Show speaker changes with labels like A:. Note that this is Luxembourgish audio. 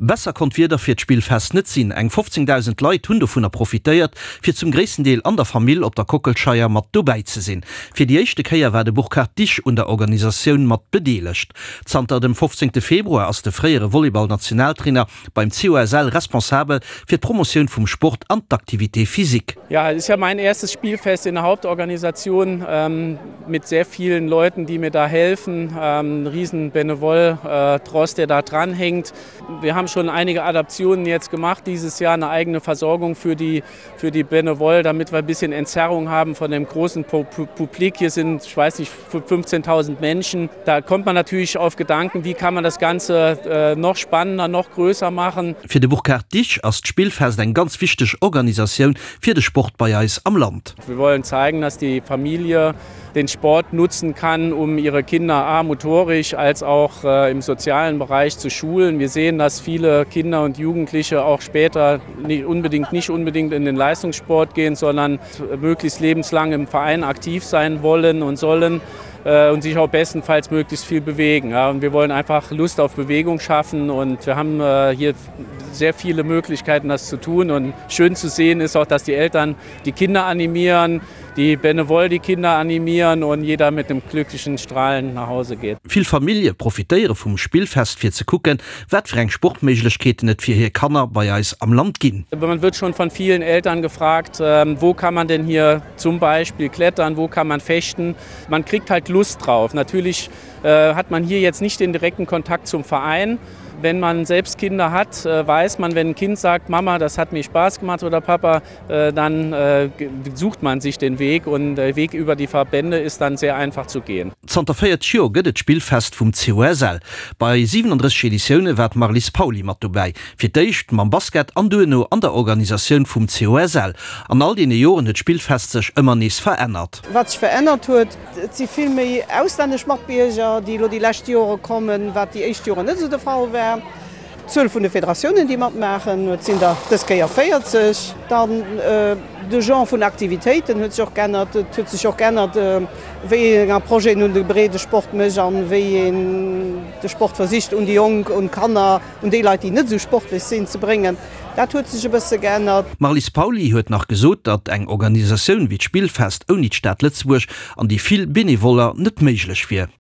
A: Besser konnt d'Wieder fir d'Spillfest net sinn. Eng 15.000 Leit hunn dovunner profitéiert, fir zum gréissten Deel an der Famill op der Kockelscheier mat dobäi ze sinn. Fir déi éischte Kéier war de Burkhard Disch un der Organisatioun mat bedeelegt. Zanter dem 15 Februar ass de fréiere Volleyball-Nationaltrainer beim COSL responsabel fir d'Promotioun vum Sport an d'Activité physique.
B: Ja, es ist ja mein erstes Spielfest in der Hauptorganisation ähm, mit sehr vielen Leuten, die mir da helfen. Ähm, riesen Benevol äh, Trost, der da dranhängt. Wir haben schon einige Adaptionen jetzt gemacht dieses Jahr eine eigene Versorgung für die, für die Benevol, damit wir ein bisschen Entzerrung haben von dem großen Publik. Hier sind ich weiß nicht 15.000 Menschen. Da kommt man natürlich auf Gedanken, wie kann man das Ganze äh, noch spannender, noch größer machen.
A: Fir de Burkhard Disch ass d'Spillfest eng ganz wichteg Organisatioun fir de Sport bei eis am Land.
B: Wir wollen zeigen, dass die Familie den Sport nutzen kann, um ihre Kinder a motorisch als auch äh, im sozialen Bereich zu schulen. Wir sehen, dass viele Kinder und Jugendliche auch später nicht unbedingt nicht unbedingt in den Leistungssport gehen, sondern möglichst lebenslang im Verein aktiv sein wollen und sollen äh, und sich auch bestenfalls möglichst viel bewegen. Ja, und wir wollen einfach Lust auf Bewegung schaffen und wir haben äh, hier sehr viele Möglichkeiten, das zu tun. Und schön zu sehen ist auch, dass die Eltern die Kinder animieren, die Benevol die Kinder animieren und jeder mit dem glücklichen Strahlen nach Hause geht.
A: Vill Famillje profitéiere vum Spillfest fir ze kucken, wat fir eng Sportméiglechkeeten et fir hir Kanner bei eis am Land ginn.
B: Man wird schon von vielen Eltern gefragt, ähm, wo kann man denn hier zum Beispiel klettern, wo kann man fechten. Man kriegt halt Lust drauf. Natürlich äh, hat man hier jetzt nicht den direkten Kontakt zum Verein. Wenn man selbst Kinder hat, äh, weiß man, wenn ein Kind sagt, Mama, das hat mir Spaß gemacht oder Papa, äh, dann äh, sucht man sich den Weg und der Weg über die Verbände ist dann sehr einfach zu gehen.
A: Zanter 40 Joer gëtt et d'Spillfest vum COSL. Bei 37 Editioune war d'Marlies Pauly mat dobäi. Fir d'éischt mam Basket an duerno an der Organisatioun vum COSL. An all deene Joren huet d'Spillfest sech ëmmer nees verännert.
C: Wat sech verännert huet, et si vill méi auslännesch Matbierger, déi elo déi lescht Jore kommen, wat déi éischt Joren net esou de Fall war. D'Zuel vun de Federatiounen, déi matmaachen, et sinn der dës Kéier 40. Dann de Genre vun Aktivitéiten huet sech och geännert. Et huet sech och geännert, wéi eng Approche een un de Breedesport mécht an wéi een de Sport versicht un déi Jonk, un d'Kanner, un déi Leit, déi net esou sportlech sinn, ze bréngen. Dat huet sech e bësse geännert.
A: D'Marlies Pauly huet nach gesot, datt eng Organisatioun wéi d'Spillfest ouni d'Stad Lëtzebuerg an déi vill Benevoller net méiglech wier.